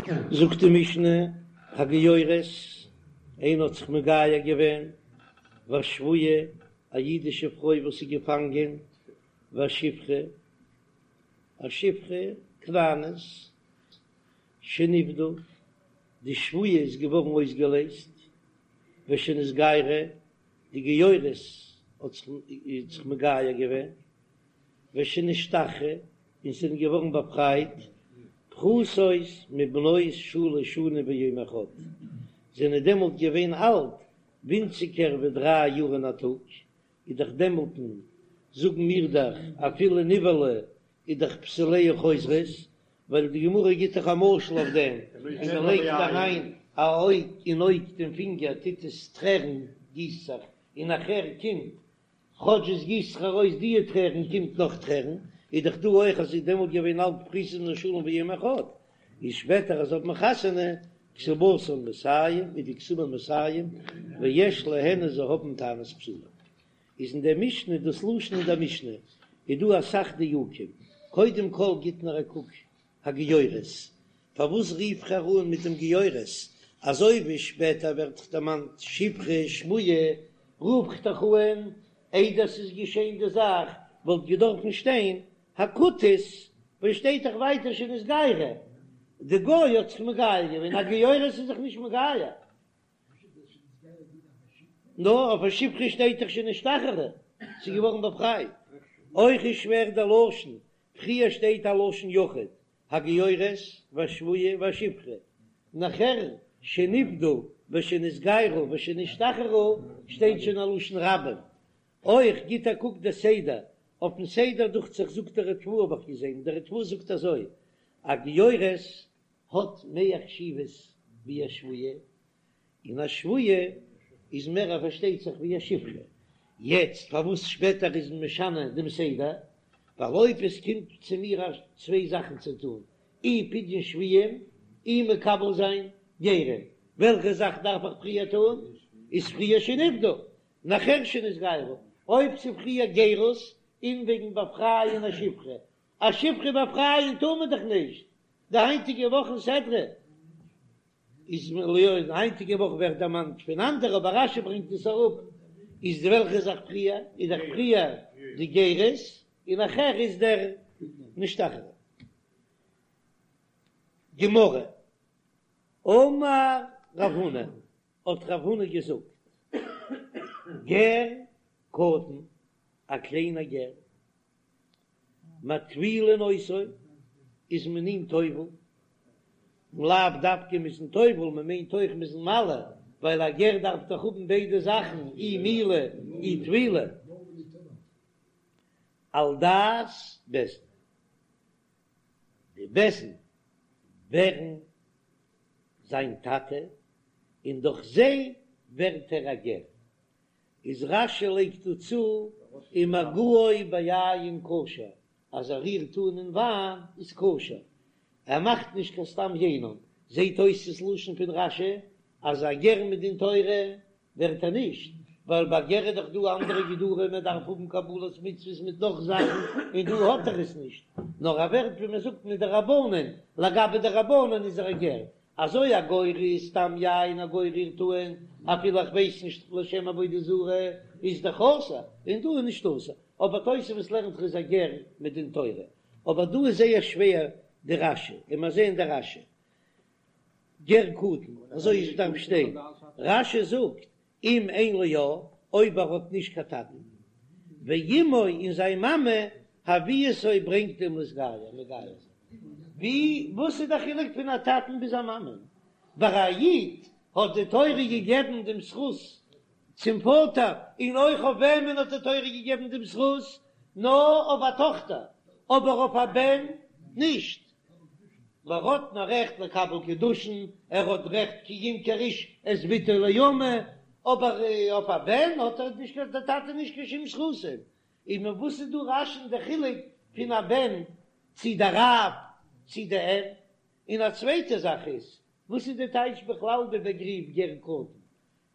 זאגט די משנה, הגיורת, איינער האט זיך מגייר געווען, והשבויה, א אידישע פרוי וואס איז געפאנגען, והשפחה, א שפחה כנענית, שנפדו, די שבויה איז געווארן אויסגעלייזט, ושנתגיירו, די גיורת האט זיך מגייר געווען, ושנשתחררו, און זענען געווארן באפרייט, פחותות מבנות שלש שנים ויום אחד, זענען דעמאלט געווען אלט ווינציגער ווי דריי יאר און א טאג, איז דאך דעמאלטן, זאגן מיר דאך, אפילו נבעלה איז דאך בתוליה חוזרות, ווייל די גמרא גיט דאך א משל אויף דעם, ווען מען לייגט אריין א אויג אין אויג דעם פינגער טוט עס טרערן גיסט זיך, און נאכער קומט כאטש עס גיסט זיך ארויס דיע טרערן קומט נאך טרערן, איז דאך דא אויך אז ס'איז דעמאלט געווען אלט פחותות מבנות שלש ויום אחד, איז שפעטער אז האט מען חתונה כתובתן מאתים איז די כתובה מאתים ויש להן און זיי האבן טענת בתולים. איז אין דער משנה דאס לשון אין דער משנה איז דא אסאך דיוקים, קודם כל גיט נאר א קוק הגיורת, פארוואס רוף איך איר אן מיט דעם גיורת, אזוי ווי שפעטער ווערט דערמאנט שפחה שבויה, רוף איך דאך אן איידער ס'איז געשען די זאך, וואלט געדארפן שטיין הכותית, ווייל שטייט דאך ווייטער שנתגיירה, די גוי האט זיך מגייר געווען, א גיורת איז זיך נישט מגייר. נאר אויף א שפחה שטייט דאך שנשתחררה, ס'איז געווארן באפרייט. אויך איז שווער דער לשון, פריער שטייט א לשון יחיד, הגיורת והשבויה והשפחה, נאכער שנפדו ושנתגיירו ושנשתחררו שטייט שוין א לשון רבים. אויך גיט א קוק דער סדר, אויפן סדר דוכט זיך זאגט דער ריטב"א האב איך געזען, דער ריטב"א זאגט אזוי, א גיורת האט מער חשיבות ווי א שבויה, און א שבויה איז מער פארשטייט זיך ווי א שפחה. יעצט פארוואס שפעטער איז מען משנה דעם סדר? ווייל אויב עס קומט צו מיר א צוויי זאכן צו טון, אי פדיון שבויים אי מקבל זיין גרים, וועלכע זאך דארף איך פריער טון? איז פריער שנפדו, נאכער שנתגיירו. אויב ס'פריער גירות און וועגן באפרייען א שפחה, א שפחה באפרייען טאר מען דאך נישט, די היינטיגע וואך אין סדרה איז די היינטיגע וואך ווערט דערמאנט פון אנדערע אבער רש"י ברענגט עס אראפ, איז די וועלכע זאך פריער איז דאך פריער די גירות און נאכער איז דער נשתחרר. גמרא, אמר רב הונא, האט רב הונא געזאגט, גר קטן, א קליינער גר, מטבילין אותו, איז מען אים טובל, און לאו דווקא מ'איז אים טובל, מען מיינט אויך מ'איז אים מל, ווייל א גר דארף דאך האבן ביידע זאכן, אי מילה אי טבילה, על דעת בית דין, די בית דין ווערן זיין טאטע, און דורך זיי ווערט ער א גר. איז רש"י לייגט דא צו ומגעו ביין כשר, אז ער רירט אן אין וויין איז כשר, ער מאכט נישט קיין סתם יינם, זעהט אויס ס'איז לשון פון רש"י אז א גר מדין תורה ווערט ער נישט, ווייל ביי גר איז דאך דא אנדערע גדרים מען דארף האבן קבלת מצוות מיט נאך זאכן און דא האט ער עס נישט, נאר ער ווערט ווי מען זאגט מדרבנן, לגבי די רבנן איז ער א גר, אזוי א גוי רירט סתם יין א גוי רירט אן אפילו איך ווייס נישט לשם עבודה זרה איז דאך אסור און דא איז נישט אסור אבער תוספות לערנט ער איז א גר מדין תורה אבער דא איז זייער שווער די רש"י און מיר זעען די רש"י גר קטן אזוי איז דארף שטיין רש"י זאגט אם אין לו אב, אויב ער האט נישט קיין טאטן, ואמו און זיין מאמע הביאתו ברענגט אים להתגייר, מגייר זיין. ווי, וואס איז דער חילוק פון א טאטן ביז א מאמע? ביי א איד האט די תורה געגעבן דעם זכות צום פאטער, און אויך אויף וועמען האט די תורה געגעבן דעם זכות? נאר אויף א טאכטער, אבער אויף א בן נישט. ער האט נאר רעכט לקבל קידושין, ער האט רעכט כי ימכור איש את בתו לאמה, אבער אויף א בן האט ער נישט קיין, דער טאטע נישט קיין שום זכותים. און מיט וואס איז דא רש"י'ן די חילוק פון א בן צו דער אב צו די אם? און א צווייטע זאך איז, וואס איז די טייטש בכלל די באגריף גר קטן?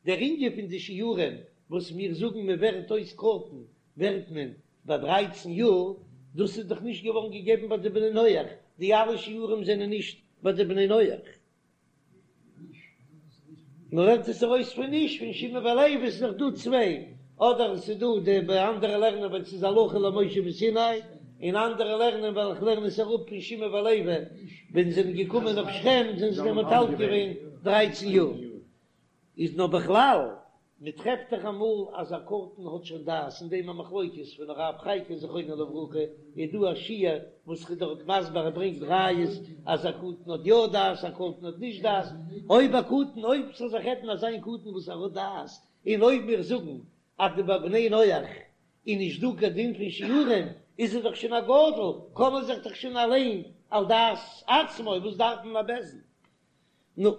דער ענין פון די שיעורים וואס מיר זאגן מען ווערט אויס קטן ווערט מען ביי דרייצן יאר, דאס איז דאך נישט געווארן געגעבן ביי די בני נח, די אלע שיעורים זענען נישט ביי די בני נח. מען לערנט עס ארויס פון נישט פון שמעון ולוי, עס איז דאך דא צוויי, אדער עס איז דא די ביי אנדערע לערנען ווייל עס איז הלכה למשה מסיני, און אנדערע לערנען ווייל איך לערן עס אראפ פון שמעון ולוי ווען זיי זענען געקומען אויף שכם זענען זיי דעמאלט אלט געווען דרייצן יאר. איז נאר בכלל, מען טרעפט דאך אמאל אז א קטן האט שוין דעת, אין דעם א מחלוקת פון הרב חייקין זכרונו לברכה, איז דא א שיעור וואס איז דארט מסביר ער ברענגט ראיות אז א קטן האט יא דעת א קטן האט נישט דעת, אויב א קטן אויב ס'זאל זיך רעדן אזא איין קטן וואס ער האט דעת, און אויב מיר זאגן אז די ביי בני נח איז נישט דא קיין דין פון שיעורים, איז ער דאך שוין א גדול, קען ער זיך דאך שוין אליין על דעת עצמו, וואס דארף מען א בית דין? נו,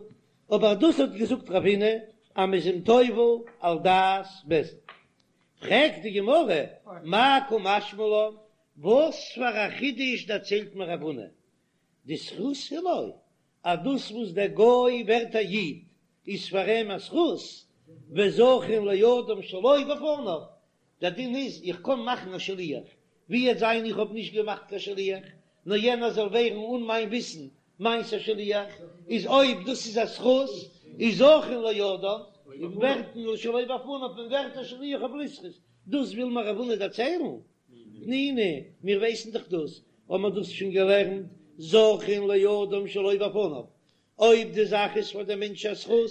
אבער דאס האט געזאגט רב הונא אז מ'איז אים טובל על דעת בית דין. פרעגט די גמרא, מאי קא משמע לן, וואס פאר א חידוש דערציילט מיר רב הונא, דזכות הוא לו, אז דאס וואס דער גוי ווערט א איד איז פאר אים א זכות, וזכין לאדם שלא בפניו, דער דין איז איך קען מאכן א שליח, ווי עט זיין איך האב נישט געמאכט קיין שליח, נאר יענער זאל ווערן אן מיין וויסן מיינס א שליח, איז אויב דאס איז א זכות, איז זכין לאדם, און ווערט מען שלא בפניו מען ווערט א שליח אויף לזכות, דאס וויל מיר רב הונא דערציילן? תנינא, מיר ווייסן דאך דאס, האבן מיר דאס שוין געלערנט, זכין לאדם שלא בפניו, אויב די זאך איז פאר דעם מענטש א זכות,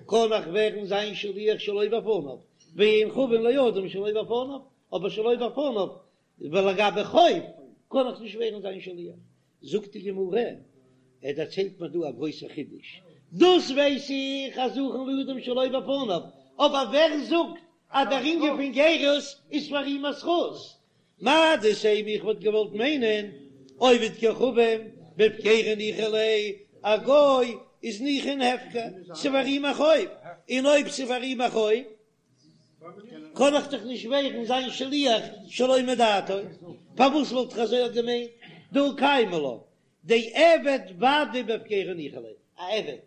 קען איך ווערן זיין שליח שלא בפניו, ואין חבין לאדם שלא בפניו, אבער שלא בפניו, ולגבי חוב, קען איך נישט ווערן זיין שליח. זאגט די גמרא, ער דערציילט מיר דא א גרויסע חידוש, דאס ווייס איך אז זכין לאדם שלא בפניו, אבער ווער זאגט אז דער ענין פון גירות איז פאר אים א זכות? מהו דתימא איך וואלט געוואלט מיינען עובד כוכבים בהפקירא ניחא ליה, א גוי איז ניחא אין הפקר, ס'פאר אים א חוב, און אויב ס'פאר אים א חוב קען איך דאך נישט ווערן זיין שליח שלא מדעתו, פארוואס וואלט איך אזוי געמיינט? דהא קיימא לן דעבד ודאי בהפקירא ניחא ליה, א עבד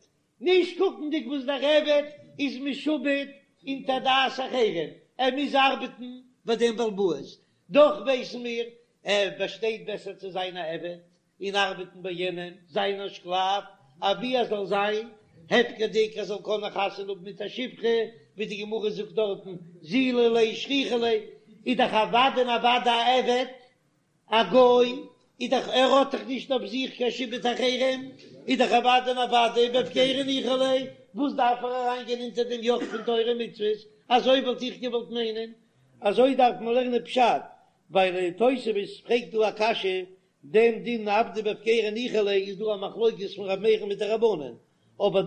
נישט קוקנדיג וואס דער עבד איז משועבד אונטער דעת אחרים, ער מוז ארבעטן ביי דעם בעל הבית, דאך ווייסן מיר ער באשטייט בעסער צו זיין א עבד און ארבעטן ביי יענעם, זיין א שקלאף, אבי ער זאל זיין הפקר'דיג, ער זאל קענען חתונה האבן מיט א שפחה, ווי די גמרא זאגט דארטן, זילא ליה שכיחא ליה, איז דאך אוודאי און אוודאי א עבד א גוי איז דאך ער האט דאך נישט אויף זיך קיין שעבוד אחרים, איז דאך אוודאי און אוודאי בהפקירא ניחא ליה, וואס דארף ער אריין גיין אונטער דעם יאך פון תורה ומצוות, אזוי וואלט איך געוואלט מיינען, אזוי דארף מען לערנען פשט, ווייל תוספות פרעגט דא א קשיא, דעם דין עבדא בהפקירא ניחא ליה איז דא א מחלוקת פון ר' מאיר'ן מיט די רבנן, אבער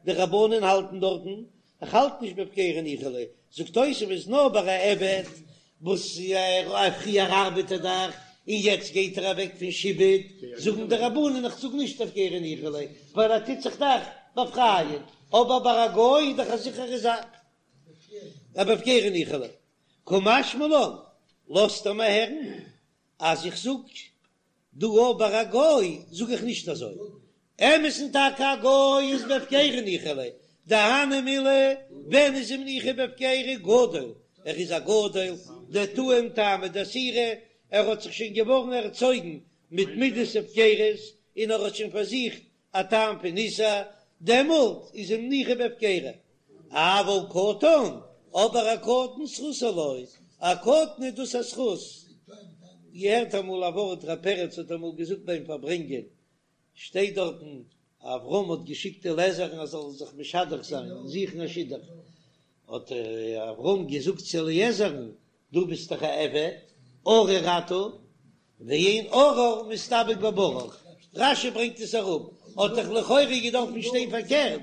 די רבנן האלטן דארטן, איך האלט נישט בהפקירא ניחא ליה, זאגט תוספות נאר ביי א עבד וואס פריער ארבעט ער דאך און יעצט גייט ער אוועק פון שעבוד, זאגן די רבנן איך זאג נישט הפקירא ניחא ליה ווייל ער טוט זיך דאך באפרייען, אבער ביי א גוי איז דאך א זיכערע זאך אז בהפקירא ניחא ליה, קא משמע לן, לאזט ער מיר הערן אז איך זאג דא אבער א גוי זאג איך נישט אזוי, אמת'ן טאקע א גוי איז בהפקירא ניחא ליה, דהני מילי ווען איז אים ניחא בהפקירא גדול, ער איז א גדול, דטעים טעמא דאיסורא, ער האט זיך שוין געווארן ערצויגן מיט מידת הפקרות און ער האט שוין פארזוכט א טעם פון איסור, דעמאלט איז אים ניחא בהפקירא. אבל קטן, אבער א קטן זכות הוא לו, א קטן איז דאס א זכות. געהערט אמאל א ווארט, ר' פרץ האט אמאל געזאגט ביים פארברענגען, שטייט דארטן, אברהם האט געשיקט אליעזר'ן ער זאל זיך משדך זיין און זוכן א שידוך, האט אברהם געזאגט צו אליעזר'ן, דו ביסט דאך א עבד, ארור אתה, ואין ארור מתדבק בברוך, רש"י ברענגט עס אראפ, האט דאך לכאורה געדארפן שטיין פארקערט,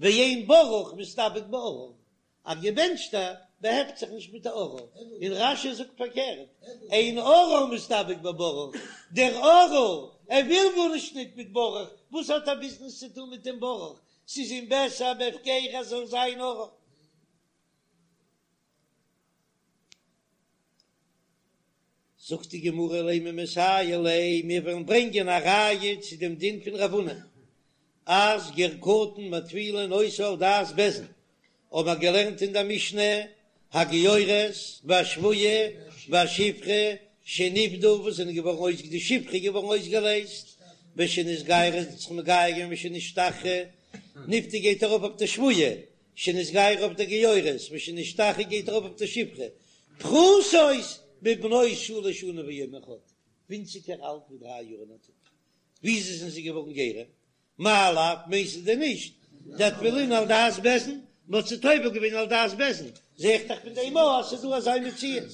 ואין ברוך מתדבק בארור, א געבענטשטער באהעפט זיך נישט מיט א ארור, און רש"י זאגט פארקערט, אין ארור מתדבק בברוך, דער ארור, ער וויל גארנישט ניט מיט ברוך, וואס האט ער ביזנעס צו טון מיט דעם ברוך, ס'איז אים בעסער בהפקירא ער זאל זיין ארור. זאגט די גמרא לימא מסייע ליה, מיר וועלן ברענגען א ראיה צו דעם דין פון רב הונא אז גר קטן מטבילין אותו על דעת בית דין, האבן מיר געלערנט אין דער משנה הגיורת והשבויה והשפחה שנפדו וואס זענען געווארן אויס די שפחה איז געווארן אויסגעלייזט ושנתגיירה זי האט זיך מגייר געווען ושנשתחררה. נפדו גייט ארויף אויף די שבויה, שנתגיירו אויף די גיורת, ושנשתחררו גייט ארויף אויף די שפחה, פחותות מבנות שלש שנים ויום אחד, ווינציגער אלט ווי דריי יאר און א טאג. וויאזוי זענען זיי געווארן גרים? מאי לאו, מיינסטו דען נישט דאטבילינהו על דעת בית דין? מ'האט זיי טובל געווען על דעת בית דין, זע איך דאך פון דעם אויך אז ס'איז דא אזא מציאות.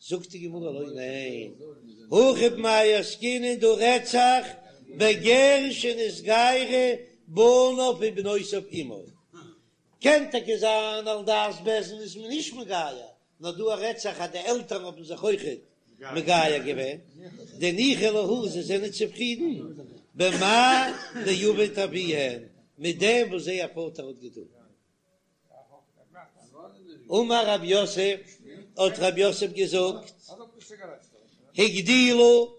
זאגט די גמרא לא ניין, הכא במאי עסקינן דא רעדט זיך בגר שנתגיירו בניו ובנותיו עמו, קען טאקע זיין על דעת בית דין איז מען נישט מגייר, נאר דא רעדט זיך אז די עלטערן האבן זיך אויכעט מגייר געווען, דניחא להו זיי זענען צופרידן במאי דעבד אבוהון מיט דעם וואס זייער פאטער האט געטון. אמר רב יוסף, האט רב יוסף געזאגט, הגדילו,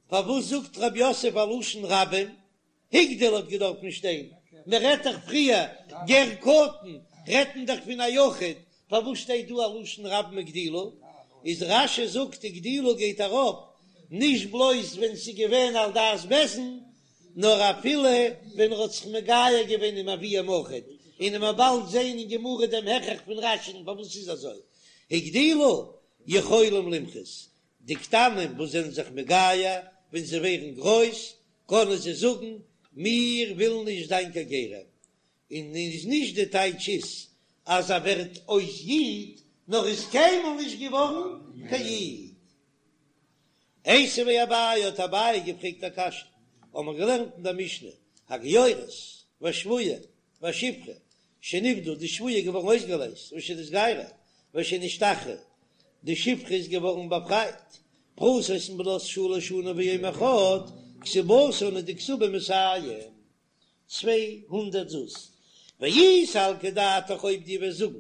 פארוואס זאגט רב יוסף א לשון רבים? הגדיל האט געדארפן שטיין, מען רעדט דאך פריער גר קטן, רעדט מען דאך פון א יחיד, פארוואס שטייט דא א לשון רבים הגדילו? איז רש"י זאגט הגדילו גייט ארויף נישט בלויז ווען ס'איז געווען על דעת בית דין, נאר אפילו ווען ער האט זיך מגייר געווען עם אביהם אויכעט, און מ'וועט באלד זעהן אין גמרא דעם הכרח פון רש"י'ן פארוואס ס'איז אזוי, הגדילו יכולים למחות, די קטנים וואס זענען זיך מגייר ווען זיי ווערן גרויס קענען זיי זאגן מיר ווילן נישט זיין קיין גרים, און איז נישט די טייטש איז אז ער ווערט אויס איד, נאר איז קיינמאל נישט געווארן קיין איד. איתיביה אביי האט אביי געפרעגט א קשיא, האבן מיר געלערנט אין דער משנה, הגיורת והשבויה והשפחה שנפדו, די שבויה איז געווארן אויסגעלייזט, ושנתגיירו ושנשתחררו, די שפחה איז געווארן באפרייט, פחותות מבנות שלש שנים ויום אחד, כתובתן איז די כתובה מאתים. 200 זוז, ואי סלקא דעתך אויב דו וועסט זאגן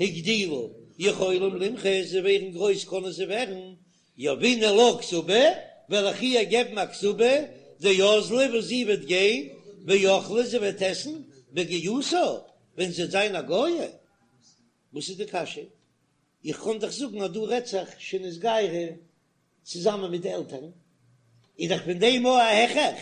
הגדילו יכולים למחות זיי ווערן גרויס קענען זיי ווערן יהבינן לה כתובה וועל איך איר געבן א כתובה דאזלה וואס זי וועט גיין ואכלה זי וועט עסן בגיותה ווען זי וועט זיין א גויה וואס איז די קשיא איך קען דאך זאגן אז דא רעדט זיך שנתגיירו צוזאמען מיט די עלטערן, איז דאך פון דעם אויך א הכרח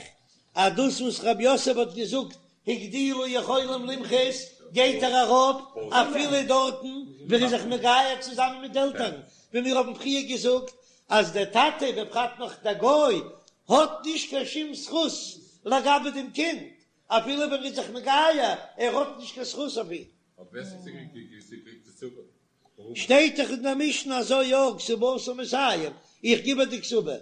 אז דאס וואס רב יוסף האט געזאגט הגדילו יכולים למחות גייט ער אראפ אפילו דארטן ווען ער איז זיך מגייר צוזאמען מיט די עלטערן, ווי מיר האבן פריער געזאגט אז דער טאטע בפרט נאך דער גוי האט נישט קיין שום זכות לגבי דעם קינד אפילו ווען ער איז זיך מגייר, ער האט נישט קיין זכות אויף אים. שטייט דאך אין דער משנה אזוי יא, כתובתה מאתים, איך גיב איר די כתובה.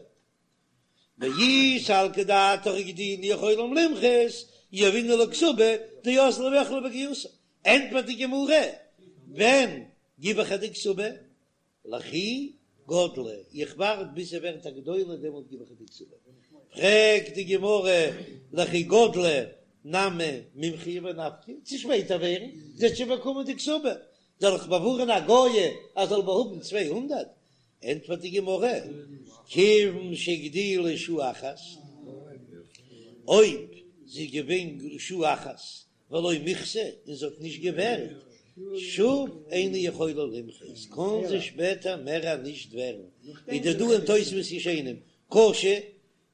ואי סלקא דעתך הגדילו יכולים למחות, יהבינן לה כתובה, דאזלה ואכלה בגיותה. ענטפערט די גמרא, ווען גיב איך איר די כתובה? לכי גדלה, איך ווארט ביז זי ווערט א גדולה דעמאלט גיב איך איר די כתובה. פרעגט די גמרא, לכי גדלה נמי מימחיא ונפקא, צו שפעטער ווערן, זי האט שוין באקומען די כתובה, זאל איך באווארען א גויה אז זאל באהאבן 200? ענטפערט די גמרא, כיוון שהגדילה שעה אחת, אויב זי איז געווען שעה אחת ולא מיחתה און זי האט נישט געווערט, שוב אינה יכולה למחות, קען זי שפעטער מער נישט ווערן, איז דא דא אין תוספות ישנים קשה,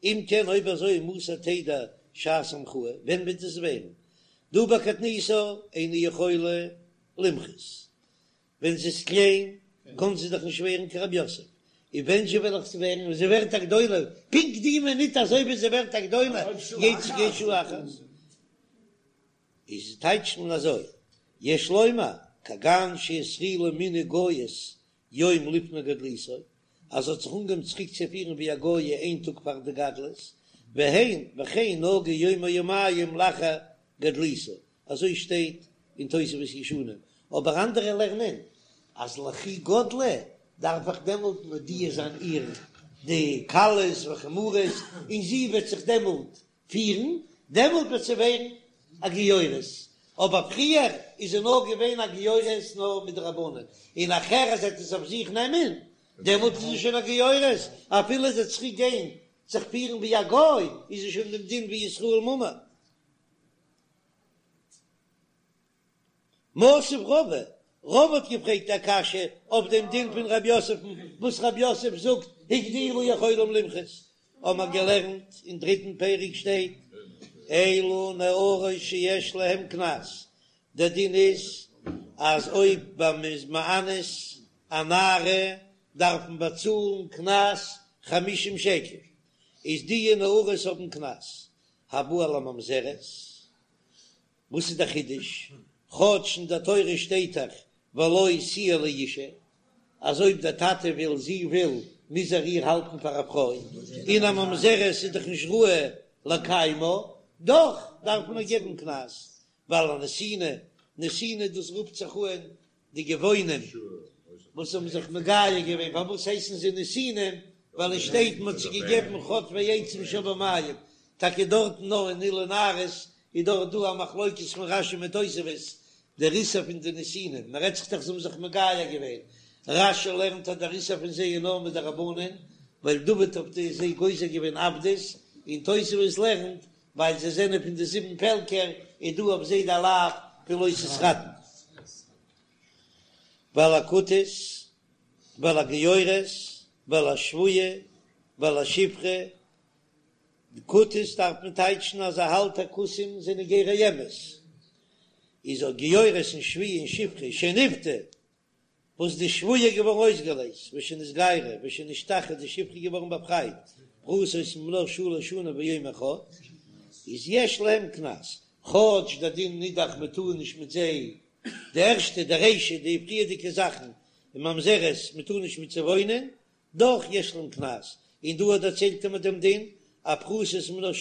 אם כן אויב אזוי מתי תדע שעת המחאה, ווען וועט עס ווערן? דהא בקטנותה אינה יכולה למחות, ווען זי איז קליין קען זי דאך נישט ווערן כרב יוסף, און ווען זשע וועל איך זי ווערן ווען זי ווערט א גדולה, פונקט די מינוט אזוי ווי זי ווערט א גדולה גייט זי גיין שעה אחת, איז טייטשט מען אזוי, יש לומר כגון שהתחילה מנהג גויות יום לפני גדלותה, אז זי האט זיך אנגעהויבן צוריק צו פירן ווי א גויה איין טאג פאר די גדלות, והן וכן נהגה יום או יומיים לאחר גדלותה, אזוי שטייט אין תוספות ישנים, אבער אנדערע לערנען אז לכי גדלה דארף איך דעמאלט מודיע זיין איר די קלות וחמורות און זי וועט זיך דעמאלט פירן, דעמאלט וועט זי ווערן א גיורת, אבער פריער איז זי נאר געווען א גיורת נאר מדרבנן, און נאכער אז זי וועט עס אויף זיך נעמען, דעמאלט איז זי שוין א גיורת, אפילו זי וועט צוריק גיין זיך פירן ווי א גוי, איז זי שוין דעם דין ווי ישראל מומר. מתיב רבא, רבא האט געפרעגט א קשיא אויף דעם דין פון רב יוסף'ן, וואס רב יוסף זאגט הגדילו יכולים למחות, האבן מיר געלערנט אין דריטן פרק שטייט. אלו נערות שיש להם קנס, דער דין איז אז אויב מען איז מאנס א נערה דארף מען באצאלן קנס חמישים שקל, איז די נערות האבן קנס, הבא על הממזרת, וואס איז דער חידוש? כאטש אין דער תורה שטייט דאך ולו תהיה לאשה, אז אויב דער טאטע וויל, זי וויל, מוז ער איר האלטן פאר א פרוי, און א ממזרת איז דאך נישט ראוי לקיימה, דאך דארף מען איר געבן קנס, ועל הנתינה, נתינה דאס רופט זיך אן די גבעונים וואס האבן זיך מגייר געווען, פארוואס הייסן זיי נתינים? ווייל עס שטייט מען האט זיי געגעבן חוטבי עצים שואבי מים, טאקע דארטן נאר אין אלו נערות איז דארט דא א מחלוקת פון רשי מיט תוספות, דער איסור פון די נתינים, מען רעדט זיך דאך זיי האבן זיך מגייר געווען, רשי לערנט אז דער איסור פון זיי איז נאר מדרבנן, ווייל דוד האט זיי גוזר געווען עבדות, און תוספות לערנט ווייל זיי זענען פון די זיבן פעלקער איז דא אויף זיי די לאו פון לא תתחתן. ועל הכותית ועל הגיורת ועל השבויה ועל השפחה, די כותית דארף מען טייטשן אז ער האלט אז כותים זענען גרי אמת, איז אויך גיורת און שבויה און שפחה שנפדו וואס די שבויה איז געווארן אויסגעלייזט, ושנתגיירה, ושנשתחררה, די שפחה איז געווארן באפרייט, פחותות מבנות שלש שנים ויום אחד, איז יש להם קנס, כאטש דער דין איז דאך מען טאר נישט מיט זיי, די ערשטע, די רישא, די פריערדיגע זאכן, און ממזרת, מען טאר נישט מיט זיי וואוינען, דאך יש להם קנס, און דא דערציילט ער מיט דעם דין, אז פחותות מבנות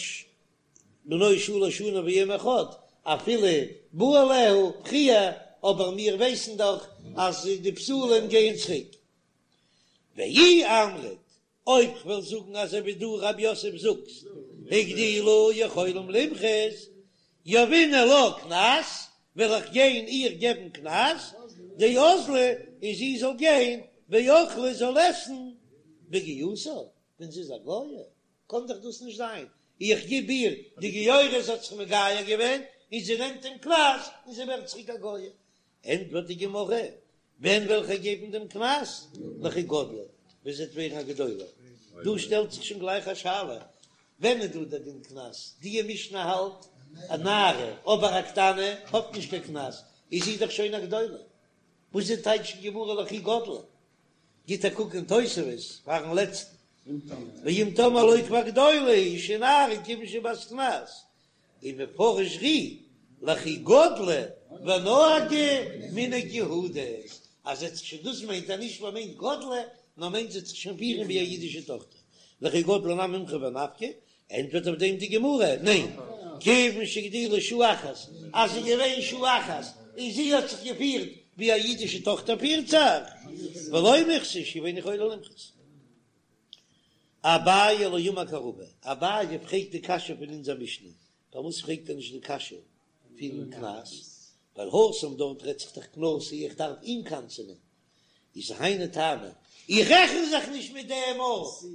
בנות שלש שנים ויום אחד, אפילו בא עליה פריער, אבער מיר ווייסן דאך אז די בתולים גייען צוריק. ואי אמרת, אויב כ'וועל זאגן אזוי ווי דו רב יוסף זאגסט, הגדילו יכולים למחות, יהבינן לה קנס, וועל איך גיין איר געבן קנס, דאזלה, און זי זאל גיין, ואכלה זאל עסן בגיותה, ווען זי איז א גויה. קען דאך דאס נישט זיין, איך גיב איר די גיורת האט זיך מגייר געווען און זי נעמט דעם קנס און זי ווערט צוריק א גויה, ענטפערט די גמרא, ווען וועל איך געבן דעם קנס? לכי גדלה, ווען זי וועט ווערן א גדולה. דא שטעלט זיך שוין גלייך א שאלה, ווען איז דא דער דין קנס? די משנה האלט א נערה, אבער א קטנה האט נישט קיין קנס, איז זי דאך שוין א גדולה, וואס איז טייטש אין גמרא לכי גדלה? גיט א קוק אין תוספות פארן לעצטן, ואם תאמר לא כבר גדולה היא שנערה כיוון שבת קנס, ומפרש ר"י לכי גדלה ונהגה מנהג יהודית, אז זי האט זיך שוין דאס מיינט אז נישט מען מיינט גדלה, נאר מיינט זי האט זיך שוין פירן ווי א אידישע טאכטער, לכי גדלה נמי מימחי ונפקא, ענטפערט אויף דעם די גמרא, ניין, כיוון שהגדילה שעה אחת, אז ס'איז געווען שעה אחת און זי האט זיך געפירט ווי א אידישע טאכטער פירט זיך, ולא מיחתה שוב אינה יכולה למחות. אביי לא אמר כרבא, אביי פרעגט די קשיא פון אונזער משנה, פארוואס פרעגט ער נישט די קשיא פון קנס? ווייל התם דארט רעדט זיך דאך קנסו איך דארף אים קנס'ענען, איז היינו טעמא, איך רעכן זיך נישט מיט דעם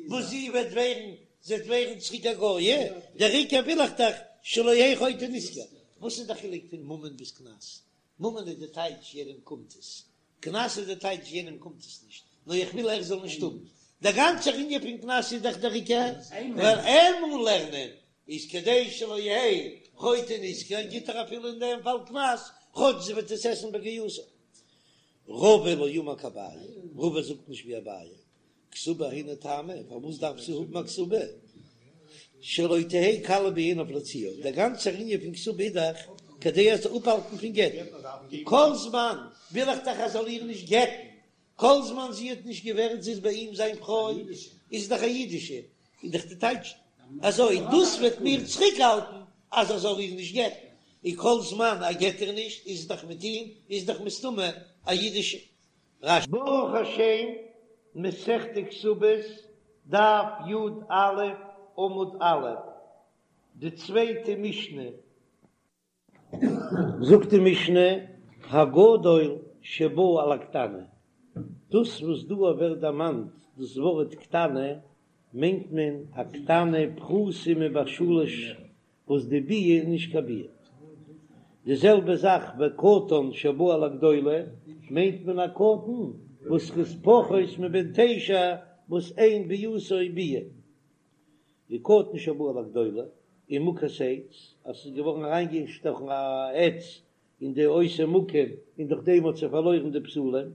וואס זי וועט ווערן, זי וועט ווערן צוריק א גויה, דער עיקר וויל איך דאך שלא יהא חוטא נשכר. וואס איז די חילוק פון ממון ביז קנס? ממון איז די טייטש יענעם קומט עס, קנס איז די טייטש יענעם קומט עס נישט, נאר איך וויל ער זאל נישט האבן. דער גאנצער ענין פון קנס איז דאך דער עיקר ווייל ער מוז לערנען, איז כדי שלא יהא חוטא נשכר גיט ער אפילו אין דעם פאל קנס, כאטש זי וועט עס עסן בגיותה. רבא לא אמר כאביי, רבא זאגט נישט ווי אביי, כתובה היינו טעמא, פארוואס דארף זי האבן א כתובה? שלא תהא קלה בעיניו להוציאה, דער גאנצער ענין פון כתובה איז דאך כדי ער זאל אפהאלטן פון גט'ן, כל זמן וויל איך דאך ער זאל איר נישט גט'ן, כל זמן זי האט נישט געווערט זי איז ביי אים זיין פרוי, איז זי דאך א אידישע, איז דאך די טייטש אזוי, דאס וועט מיר צוריקהאלטן אז ער זאל איר נישט גט'ן, און כל זמן ער גט איר נישט איז זי דאך מיט אים, איז דאך מסתמא א אידישע. רש"י. ברוך השם, מסכת כתובות, דף י"א, עמוד א', די צווייטע משנה. זאגט די משנה, הגדול שבא על הקטנה, דאס וואס דא ווערט דערמאנט דאס ווארט קטנה, מיינט מען א קטנה פחותה מבת שלש וואס די ביאה איז נישט קיין ביאה. די זעלבע זאך וקטן שבא על הגדולה, מיינט מען א קטן וואס איז פחות מבן תשע וואס אין ביאתו ביאה. וקטן שבא על הגדולה. און מוכת עץ, אז ס'איז געווארן אריינגעשטאכן א עץ אין די אותו מקום און דורך דעם האט זי פארלוירן די בתולים,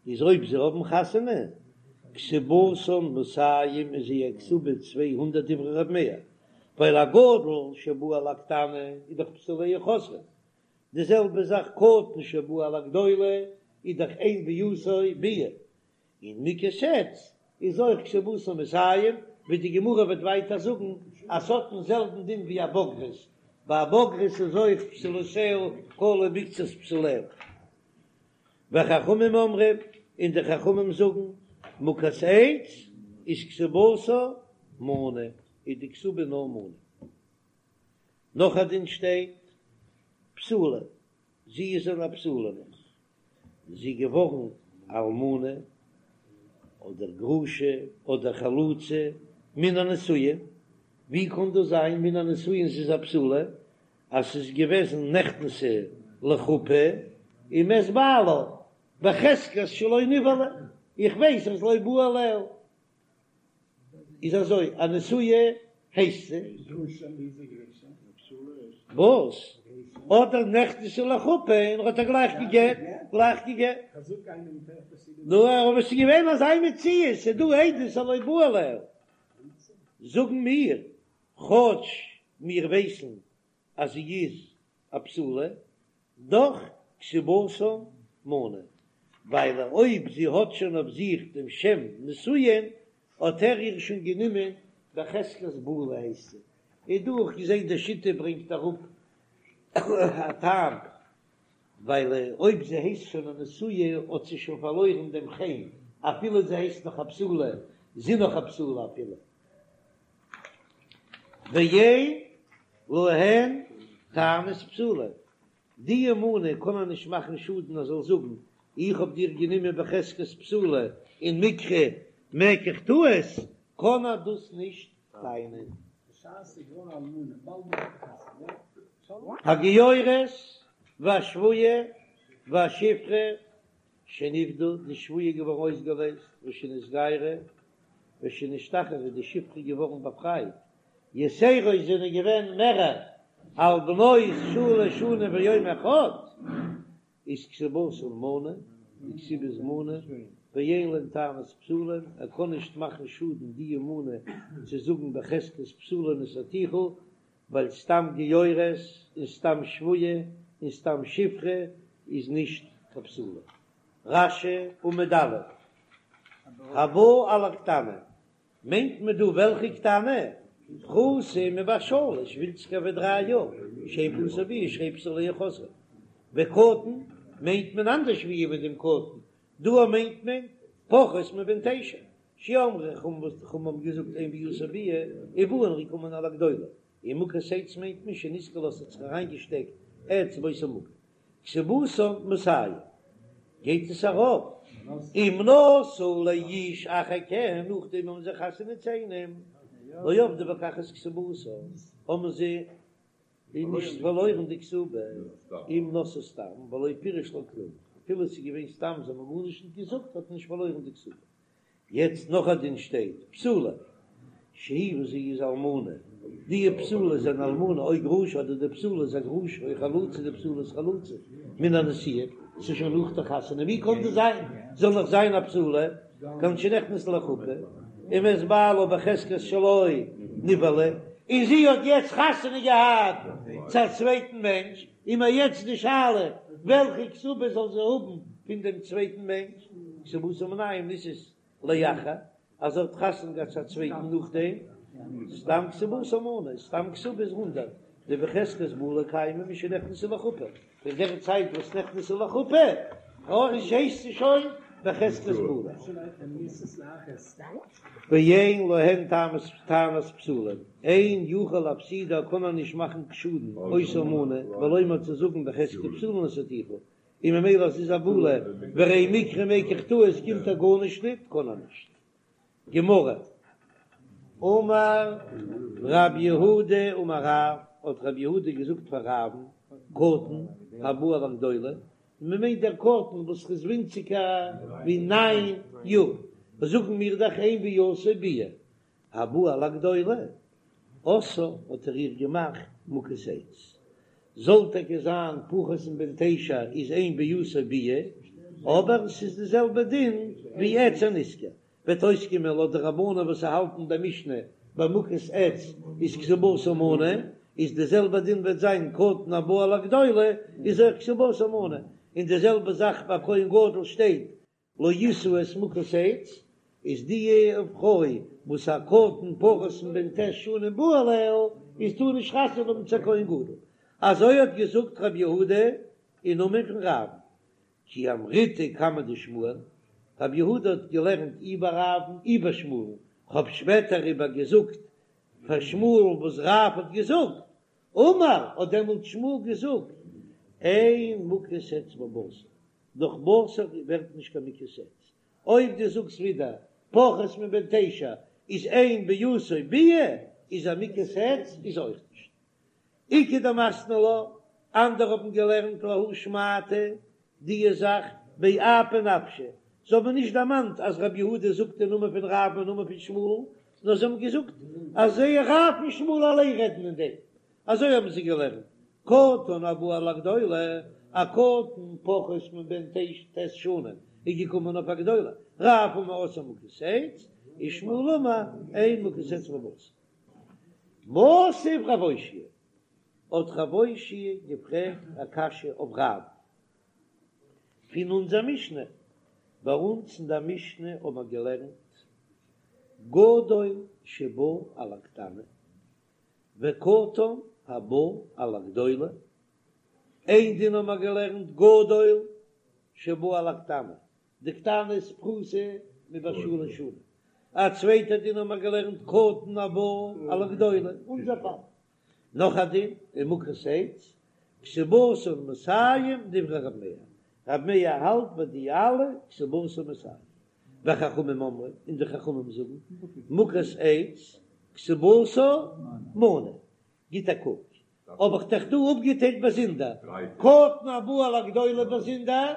איז אויב זיי האבן חתונה, כתובתן מאתים איז זייער כתובה 200 דברי ר' מאיר, ווייל א גדול שבא על הקטנה איז דאך בתוליה חוזרין, די זעלבע זאך קטן שבא על הגדולה איז דאך אין ביאתו ביאה, און מוכת עץ איז אויך כתובתן מאתים, ווי די גמרא וועט ווייטער זאגן אז ס'האט דעם זעלבן דין ווי א בוגרת, ביי א בוגרת איז אויך בתולותיה כלו מקצת בתוליה. וחכמים אומרים, און די חכמים זאגן, מוכת עץ איז כתובתה מנה, איז די כתובה נאר מנה. נאך א דין שטייט, בתולה, זי איז אן א בתולה נאך, זי איז געווארן אלמנה אדער גרושה אדער חלוצה מן הנישואין, ווי קען דאס זיין מן הנישואין זי איז א בתולה אז ס'איז געוועזן נכנסה לחופה ומת בעלה בחזקת שלא נבעלה, איך ווייס אז לא בא עליה. איז אזוי, א נשואה הייסט זי. וואס? אדער נכנסה לחופה און ער האט איר גלייך געגעט, גלייך געגעט. נו, אבער ס'איז געווען אזא מציאות, ס'איז דא עדות אז לא בא עליה. זאגן מיר, כאטש מיר ווייסן אז זי איז א בתולה, דאך כתובתן מנה, ווייל אויב זי האט שוין אויף זיך דעם שם נישואין, האט ער איר שוין גענומען בחזקת בעולה הייסט זי. איז דא אויך געזען די שיטה ברענגט אראפ א טעם, ווייל אויב זי הייסט שוין א נשואה האט זי שוין פארלוירן דעם חן, אפילו זי הייסט נאך א בתולה, זי נאך א בתולה אפילו. ואין להן טענת בתולים, די מנה קען מען נישט מאכן שאדן אז זאל זאגן איך האב דיר גענומען בחזקת בתולה און מיקרי מקח טעות, קען ער דאס נישט טענה'ן. הגיורת והשבויה והשפחה שנפדו, די שבויה איז געווארן אויסגעלייזט, ושנתגיירו, ושנשתחררו, די שפחה איז געווארן באפרייט, יתירות זענען געווען מערער, על בנות שלש שנים ויום אחד, איז כתובתן מנה, די כתובה איז מנה, ואין להן טענת בתולים, ער קען נישט מאכן שאדן די מנה צו זאגן בחזקת בתולה נשאתיך, ווייל סתם גיורת און סתם שבויה און סתם שפחה איז נישט קיין בתולה. רש"י עמוד א', הבא על הקטנה, מיינט מען דא וועלכע קטנה? פחותה מבת שלש, ווינציגער ווי דריי יאר, שאין ביאתו ביאה שהרי בתוליה חוזרין. וקטן מיינט מען אנדערש ווי מיט דעם קטן, דא מיינט מען פחות מבן תשע, שאמרו חכמים וואס די חכמים האבן געזאגט אין ביאתו ביאה ובאין רקומן על הגדולה, און מוכת עץ מיינט מען שנתקעה לה ס'האט זיך אריינגעשטעקט עץ באותו מקום. כתובתן מאתים גייט עס ארויף אם נשאו לאיש אחר כן נאכדעם האבן זיי חתונה צו איינעם לא אבדו בכך את כתובתן האבן זיי נישט פארלוירן די כתובה אם נשאו סתם ולא פירש לה כלום אפילו עס איז געווען סתם זיי האבן גארנישט נישט געזאגט האט מען נישט פארלוירן די כתובה. יעצט נאך א דין שטייט, בתולה שהיא וואס זי איז אלמנה, די בתולה איז אן אלמנה או גרושה אדער די בתולה איז א גרושה או חלוצה די בתולה איז חלוצה מן הנישואין, ס'איז שוין נאך די חתונה, ווי קען דאס זיין זאל נאך זיין א בתולה, כגון שנכנסה לחופה, ומת בעלה בחזקת שלא נבעלה, און זי האט יעצט חתונה געהאט צו א צווייטן מענטש, איז מיר יעצט די שאלה וועלכע כתובה זאל זי האבן פון דעם צווייטן מענטש, כתובתה מנין אם נישאת לאחר, אז זי האט חתונה געהאט צו א צווייטן נאכדעם, סתם כתובתה מנה, סתם כתובה איז הונדרעט, דבחזקת בעולה קיימא משנכנסה לחופה, פון דער צייט וואס נכנסה לחופה, הייסט זי שוין בחזקת בעולה. ואין להן טענת בתולים, אין יכול להפסידה קען ער נישט מאכן שאדן אותה מנה, ולומר צו זאגן בחזקת בתולה נשאתיך, און ממילא אז ס'איז א בעולה והרי מיקרי מקח טעות קומט ער גארנישט ניט קען ער נישט. גמרא, אמר רב יהודה אמר רב, האט רב יהודה געזאגט פאר רב'ן, קטן הבא על הגדולה, און מען מיינט דער קטן וואס איז ווינציגער ווי ניין יאר, זאגן מיר דאך אין ביאתו ביאה, הבא על הגדולה. עשאה האט ער איר געמאכט מוכת עץ. זאל טאקע זיין פחות מבן תשע איז אין ביאתו ביאה, אבער ס'איז די זעלבע דין ווי עץ הנסכר, וועט אויסקומען לויט די רבנן וואס האלטן די משנה ביי מוכת עץ איז כתובתה מנה, איז די זעלבע דין וועט זיין קטן הבא על הגדולה איז אויך כתובתה מנה, און די זעלבע זאך ביי כהן גדול שטייט לא ישא את מוכת עץ, איז די פרוי וואס א קטן פחות מבן ט' שנים בא עליה איז טאר נישט חתונה האבן צו א כהן גדול, אזוי האט געזאגט רב יהודה אין נאמען פון רב, כי אמריתה קמיה דשמואל, רב יהודה האט געלערנט אי ביי רב'ן אי ביי שמואל'ן, כ'האב שפעטער איבער געזאגט פאר שמואל'ן וואס רב האט געזאגט, אמר האט דעמאלט שמואל געזאגט, אין מוכת עץ בבשר, דורך בשר ווערט נישט קיין מוכת עץ, אויב דו זאגסט ווידער פחות מבן תשע איז אין ביאתו ביאה, איז א מוכת עץ איז אויך נישט. איכא דמתני לה, אנדערע האבן געלערנט להא שמעתא דיע זאך באפי נפשיה, זיי האבן נישט דערמאנט אז רבי יהודה זאגט אין נאמען פון רב און נאמען פון שמואל, נאר זיי האבן געזאגט אז זיי רב און שמואל אליין רעדן אין דעם, אזוי האבן זיי געלערנט, קטן הבא על הגדולה, א קטן פחות מבן ט' שנים איז געקומען אויף א גדולה, רב אמר עשאה מוכת עץ, ושמואל אמר אין מוכת עץ בבשר. מתיב רב אושעיא, האט רב אושעיא געפרעגט א קשיא אויף רב פון אונזער משנה, ביי אונז אין דער משנה האט מען געלערנט גדול שבא על הקטנה וקטן הבא על הגדולה, איין דין האט מען געלערנט גדול שבא על הקטנה, די קטנה איז פחותה מבת שלש שנים, א צווייטע דין האט מען געלערנט קטן הבא על הגדולה, אונזער פאל. נאך א דין אין מוכת עץ, כתובתן מאתים דברי רב מאיר, רב מאיר האלט ביי די אלע כתובתן מאתים, וחכמים אומרים, און די חכמים זאגן, מוכת עץ כתובתה מנה, גיט א קוק, האב איך דאך דא אפגעטיילט באזונדער, קטן הבא על הגדולה באזונדער,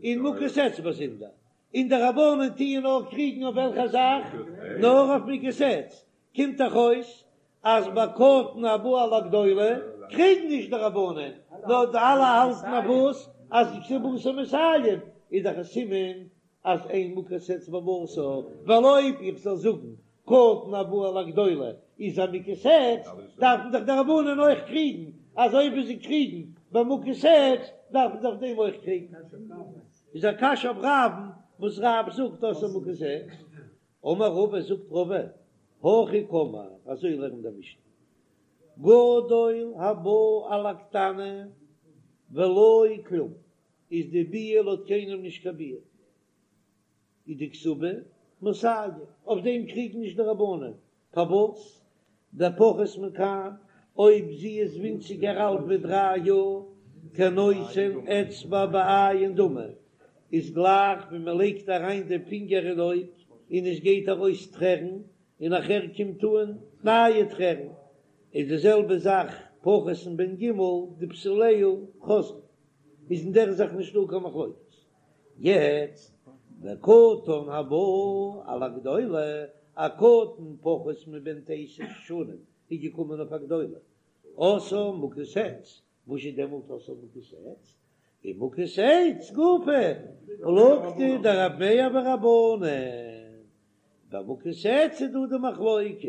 און מוכת עץ באזונדער, און די רבנן טוען נאר קריגן אויף וועלכע זאך? נאר אויף מוכת עץ, קומט דאך אויס אז ביי קטן הבא על הגדולה קריגן נישט די רבנן, נאר די אלע האלטן אויף וואס? אז כתובתה מאתים, איז דאך א סימן אז אין מוכת עץ בבשר, ווייל אויב איך זאל זאגן קטן הבא על הגדולה איז א מוכת עץ, דארפן דאך די רבנן אויך קריגן, אזוי ווי זיי קריגן ביי מוכת עץ, דארפן זיי אויף דעם אויך קריגן. איז א קשיא אויף רב'ן וואס רב זאגט עשאה מוכת עץ. אמר רבא זאגט רבא, הכי קאמר, אזוי לערנט די משנה, גדול הבא על הקטנה ולא כלום, איז די ביאה לויט קיינעם נישט קיין ביאה, איז די כתובה מאתים, אויף דעם קריגן נישט די רבנן, פארוואס? דפחות מכאן, אויב זי איז ווינציגער אלט ווי דריי יאר, כנותן אצבע בעין דמי, איז גלייך ווי מען לייגט אריין די פינגער אין אויג און עס גייט ארויס טרערן, און נאכער קומט אן נייע טרערן, איז די זעלבע זאך פחות מבן ג' די בתוליה חוזרין, איז אין דער זאך נישטא קיין מחלוקת. יעצט וקטן הבא על הגדולה, א קטן פחות מבן תשע שנים איז געקומען אויף א גדולה, עשאה מוכת עץ, וואס איז דעמאלט עשאה מוכת עץ? און מוכת עץ גופא פלוגתא דרב מאיר ורבנן, ביי מוכת עץ איז דא די מחלוקת,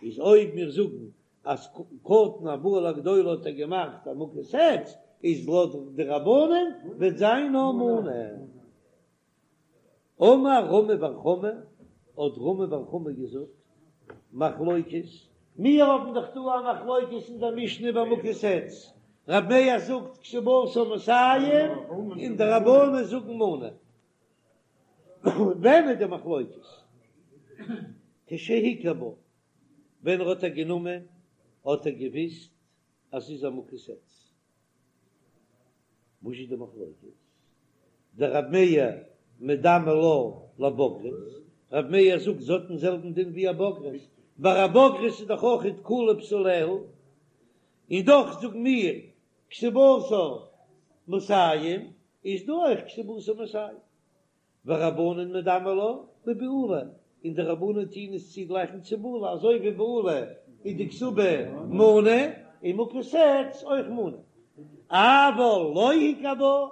איז אויב מיר זאגן אז קטן הבא על הגדולה האט ער געמאכט א מוכת עץ, איז לויט די רבנן וועט זיין נאר מנה. אמר רמי בר חמא, האט רמי בר חמא געזאגט, מחלוקת, מיר האבן דאך דא א מחלוקת אין דער משנה ביי מוכת עץ, רב מאיר זאגט כתובתה מאתים און די רבנן זאגן מנה. ווען איז די מחלוקת? כשהכיר בה, ווען ער האט איר גענומען האט ער געוויסט אז ס'איז א מוכת עץ. וואס איז די מחלוקת? דרב מאיר מדמי לה לבוגרת, רב מאיר זאגט זי האט דעם זעלבן דין ווי א בוגרת, ביי א בוגרת איז דאך אויך כלו בתוליה, און דאך זאגן מיר כתובתה מאתים, איז דא אויך כתובתה מאתים. ורבנן מדמי לה לבעולה, און די רבנן טוהן עס צוגלייכן צו בעולה, אזוי ווי בעולה. איז די כתובה מנה, און מוכת עץ אויך מנה. אבל לא הכיר בה,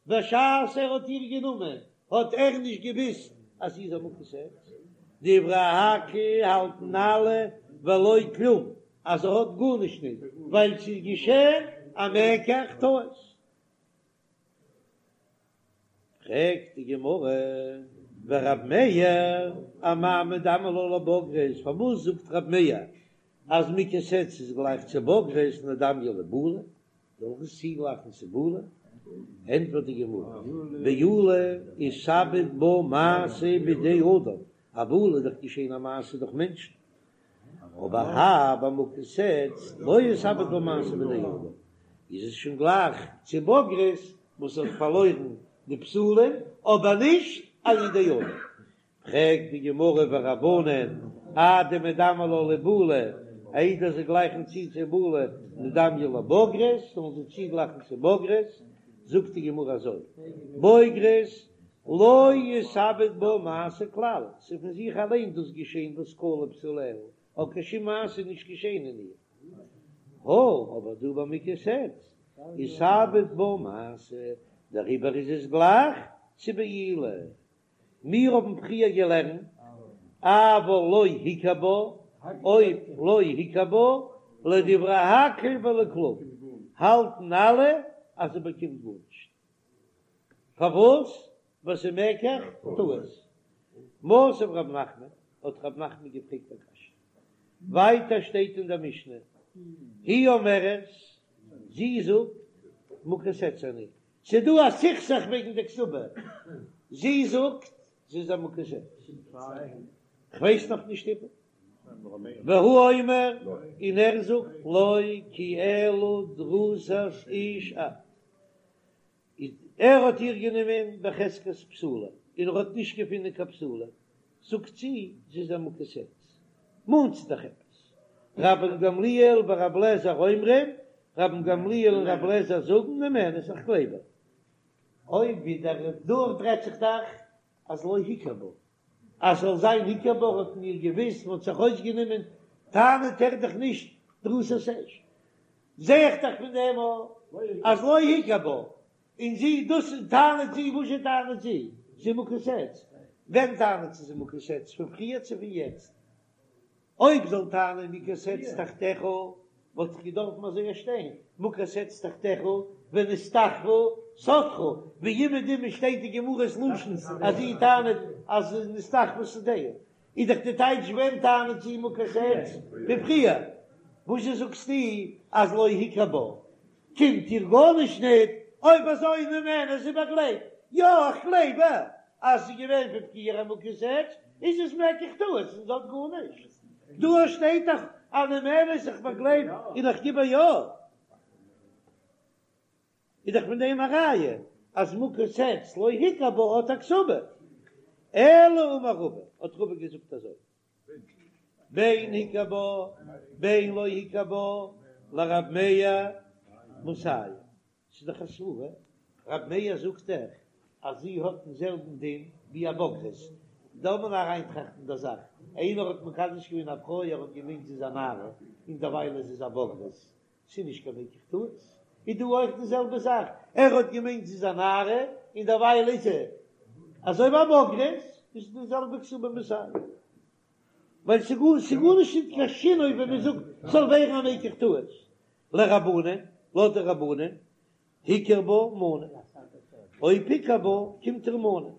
בשעת ער האט איר גענומען האט ער נישט געוויסט אז זי איז א מוכת עץ, דברי הכל האלטן אלע ולא כלום אז ער האט גארנישט נישט ווייל ס'איז געשען א מקח טעות. פרעגט די גמרא, ורב מאיר אמאי מדמי לה לבוגרת, פארוואס זאגט רב מאיר אז מוכת עץ איז גלייך צו בוגרת נדמייה לבעולה, זאל איך עס צוגלייכן צו בעולה? ענטפערט די גמרא, בעולה איתעביד בה מעשה בידי אדם, א בעולה איז דאך געשען א מעשה דורך מענטשן, אבער האי ביי מוכת עץ לא איתעביד בה מעשה בידי אדם, איז עס שוין גלייך צו בוגרת וואס האט פארלוירן די בתולים, אבער נישט על ידי אדם. פרעגט די גמרא ורבנן אדמדמי לה לבעולה, איידער זיי גלייכן צו צו בעולה נדמייה לבוגרת, זאלן זיי צוגלייכן צו בוגרת, זאגט די גמרא אזוי, בוגרת לא איתעביד בה מעשה כלל, ס'איז פון זיך אליין דאס געשען וואס כלו בתוליה, האט קיין שום מעשה נישט געשען אין איר. הא, אבער דא ביי מוכת עץ איתעביד בה מעשה, דעריבער איז עס גלייך צו בעילה. מיר האבן פריער געלערנט אבל לא הכיר בה, אויב לא הכיר בה, לדברי הכל ולא כלום, האלטן אלע אז זי באקומט גארנישט. פארוואס? ווייל ס'איז מקח טעות. מתיב רב נחמן, האט רב נחמן געפרעגט א קשיא. ווייטער שטייט אין דער משנה, היא אומרת, זי זאגט, מוכת עץ אני, ס'איז דא א סכסוך וועגן די כתובה, זי זאגט זי איז א מוכת עץ, כ'ווייס נאך נישט איבער, והוא אומר, און ער זאגט לא כי אלא דרוסת איש את, ער האט איר גענומען בחזקת בתולה, און ער האט נישט געפונען קיין בתולה, זאגט זי זי איז א מוכת עץ, מאנט זי דאך עפעס, רבן גמליאל ורבי אליעזר אומרים, רבן גמליאל און רבי אליעזר זאגן נאמנת, איך גלייב איר. אויב ווידער דארט רעדט זיך דאך אז לא הכיר בה, אז ס'זאל זיין הכיר בה האט מען איר געוויסט, מ'האט זיך אויסגענומען, טענה'ט ער דאך נישט דרוסת איש. זע איך דאך פון דעם אז לא הכיר בה, און זי דאס טענה'ט זי, וואזשע טענה'ט זי? זי מוכת עץ. ווען טענה'ט זי זי מוכת עץ? פון פריער צו פון יעצט? אויב זאל טענה'ן מוכת עץ תחתיך, וואלט איך געדארפן אזוי שטיין, מוכת עץ תחתיך ונסתחפה שדך, ווי אומעדום שטייט די גמרא'ס לשון אז זי טענה'ט אז נסתחפה שדהו, איז דאך די טייטש ווען טענה'ט זי מוכת עץ? פון פריער. וואזשע זאגסטו אז לא הכיר בה? קומט איר גארנישט ניט, אויב אזוי נאמנת זי באגלייבט, יא איך גלייב איר אז ס'איז געווען פון פריער א מוכת עץ, איז עס מקח טעות און זי האט גארנישט. דא שטייט דאך אז נאמנת איך באגלייב און איך גיב איר יא. איז דאך פון דעם א ראיה אז מוכת עץ לא הכיר בה האט א כתובה. אלא אמר רבא, האט רבא געזאגט אזוי. בין הכיר בה בין לא הכיר בה לרב מאיר מאתים, ס'איז דאך א סברה, רב מאיר זאגט דאך אז זי האט דעם זעלבן דין ווי א בוגרת, דארף מען אריינטראכטן די זאך, איינער האט מקדש געווען א פרוי ער האט געמיינט זי איז א נערה און דערווייל איז זי א בוגרת, ס'איז נישט קיין מקח טעות, איז דא אויך די זעלבע זאך, ער האט געמיינט זי איז א נערה און דערווייל איז זי אזוי ווי א בוגרת, איז די זעלבע כתובה מאתים, ווייל ס'איז גארנישט נישט קיין שינוי ווען מען זאגט ס'זאל ווערן א מקח טעות, לרבנן, לויט די רבנן, הכיר בה מנה, אויב הכיר בה קומט איר מנה,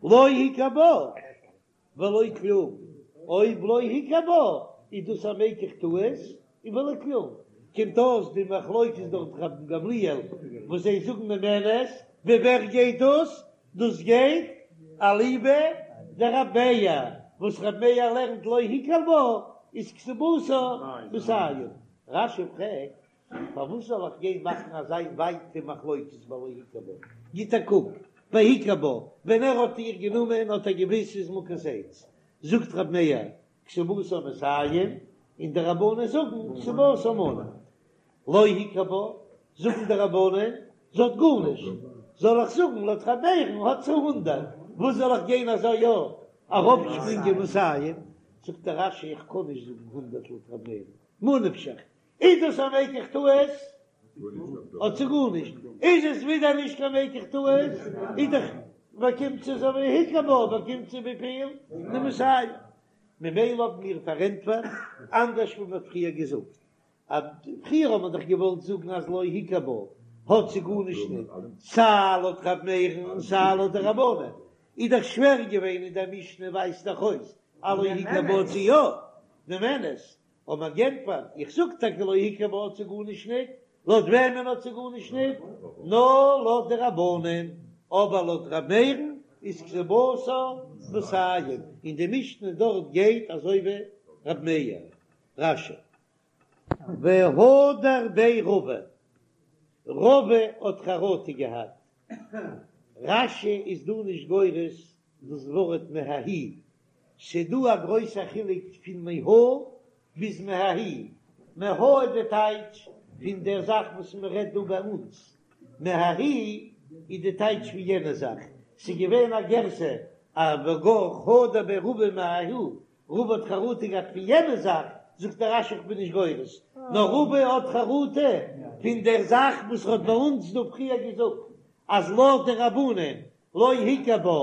לא הכיר בה. ולא כלום, אויב לא הכיר בה איז דאס א מקח טעות און ולא כלום, קומט אויס די מחלוקת דארט רבן גמליאל וואס זיי זאגן נאמנת, ווי ווער גייט דאס? דאס גייט אליבא דרב מאיר, וואס רב מאיר לערנט לא הכיר בה איז כתובתה מאתים. רש"י פרעגט פארוואס זאל איך גיין מאכן אזא ווייטע מחלוקת ביי לא הכיר בה? גיט א קוק ביי הכיר בה, ווען ער האט איר גענומען האט ער געוויסט ס'איז מוכת עץ, זאגט רב מאיר כתובתה מאתים, און די רבנן זאגן כתובתה מנה. לא הכיר בה, זאגן די רבנן, זי האט גארנישט, זאל איך זאגן לויט רב מאיר'ן האט זי הונדערט, וואס זאל איך גיין אזוי יא אראפשפרינגען מאתים? זאגט דער רש"י איך קען נישט זאגן הונדרעט לויט ר' מאיר'ן, ממה נפשך, איז דאס א מקח טעות? האט זי גארנישט, איז עס ווידער נישט קיין מקח טעות, איז דאך באקומט זי אזוי ווי הכיר בה באקומט זי וויפיל? די מאתים. ממילא האבן מיר פארענטפערט אנדערש ווי מ'האט פריער געזאגט, אז פריער האט מען דאך געוואלט זאגן אז לא הכיר בה האט זי גארנישט ניט, סיי לויט ר' מאיר'ן און סיי לויט די רבנן, איז דאך שווער געווען אין דער משנה ווייזט דאך אויס אז לא הכיר בה האט זי יא, נאמנת, האט מען גענטפערט, איך זאג טאקע לא הכיר בה האט זי גארנישט ניט, לויט וועמען האט זי גארנישט ניט? נאר לויט די רבנן, אבער לויט ר' מאיר'ן איז כתובתה מאתים, און די משנה דארט גייט אזוי ווי ר' מאיר. רש"י. והדר ביה רבא, רבא האט חרטה געהאט. רש"י איז דא נישט גורס דאס ווארט מההיא, ס'דא א גרויסע חילוק פון מהא ביז מההיא, מהא איז די טייטש פון דער זאך וואס מען רעדט דא ביי אונז, מההיא איז די טייטש פון יענע זאך, ס'איז געווען א גירסא אז והדר הדר ביה רבא מההיא, רבא האט חרטה געהאט פון יענע זאך, זאגט דער רש"י איך בין נישט גורס, נאר רבא האט חרטה פון דער זאך וואס ער האט ביי אונז דא פריער געזאגט אז לויט די רבנן לא הכיר בה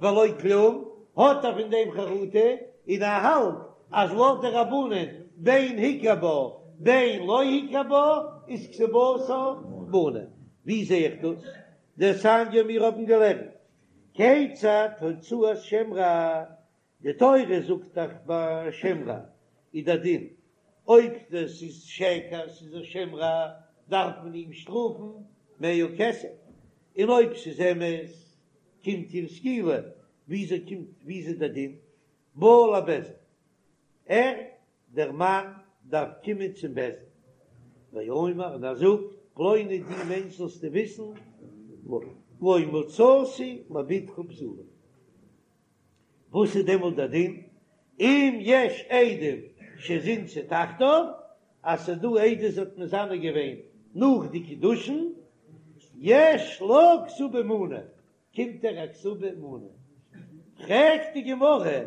ולא כלום, האט ער פון דעם חרטה, און ער האלט אז לויט די רבנן בין הכיר בה בין לא הכיר בה איז כתובתה מנה. ווי זע איך דאס? דתניא מיר האבן געלערנט כיצד הוצאת שם רע, די תורה זאגט דאך ביי שם רע איז דער דין אויב דאס איז שקר ס'איז א שם רע דארף מען אים שטראפן מאה כסף, און אויב ס'איז אמת קומט איר סקילה, וויאזוי קומט וויאזוי דער דין בא לבית דין ער דער מאן דארף קומען צום בית דין ואומר און ער זאגט פלוני דו מענטש זאלסטו וויסן לא מצאתי לבתך בתולה. וואס איז דעמאלט דער דין? אם יש עדים שזינתה תחתיו, אז ס'איז דא עדות זי האט מזנה געווען נאך די קידושין, יש לה כתובה מנה, קומט איר א כתובה מנה. פרעגט די גמרא,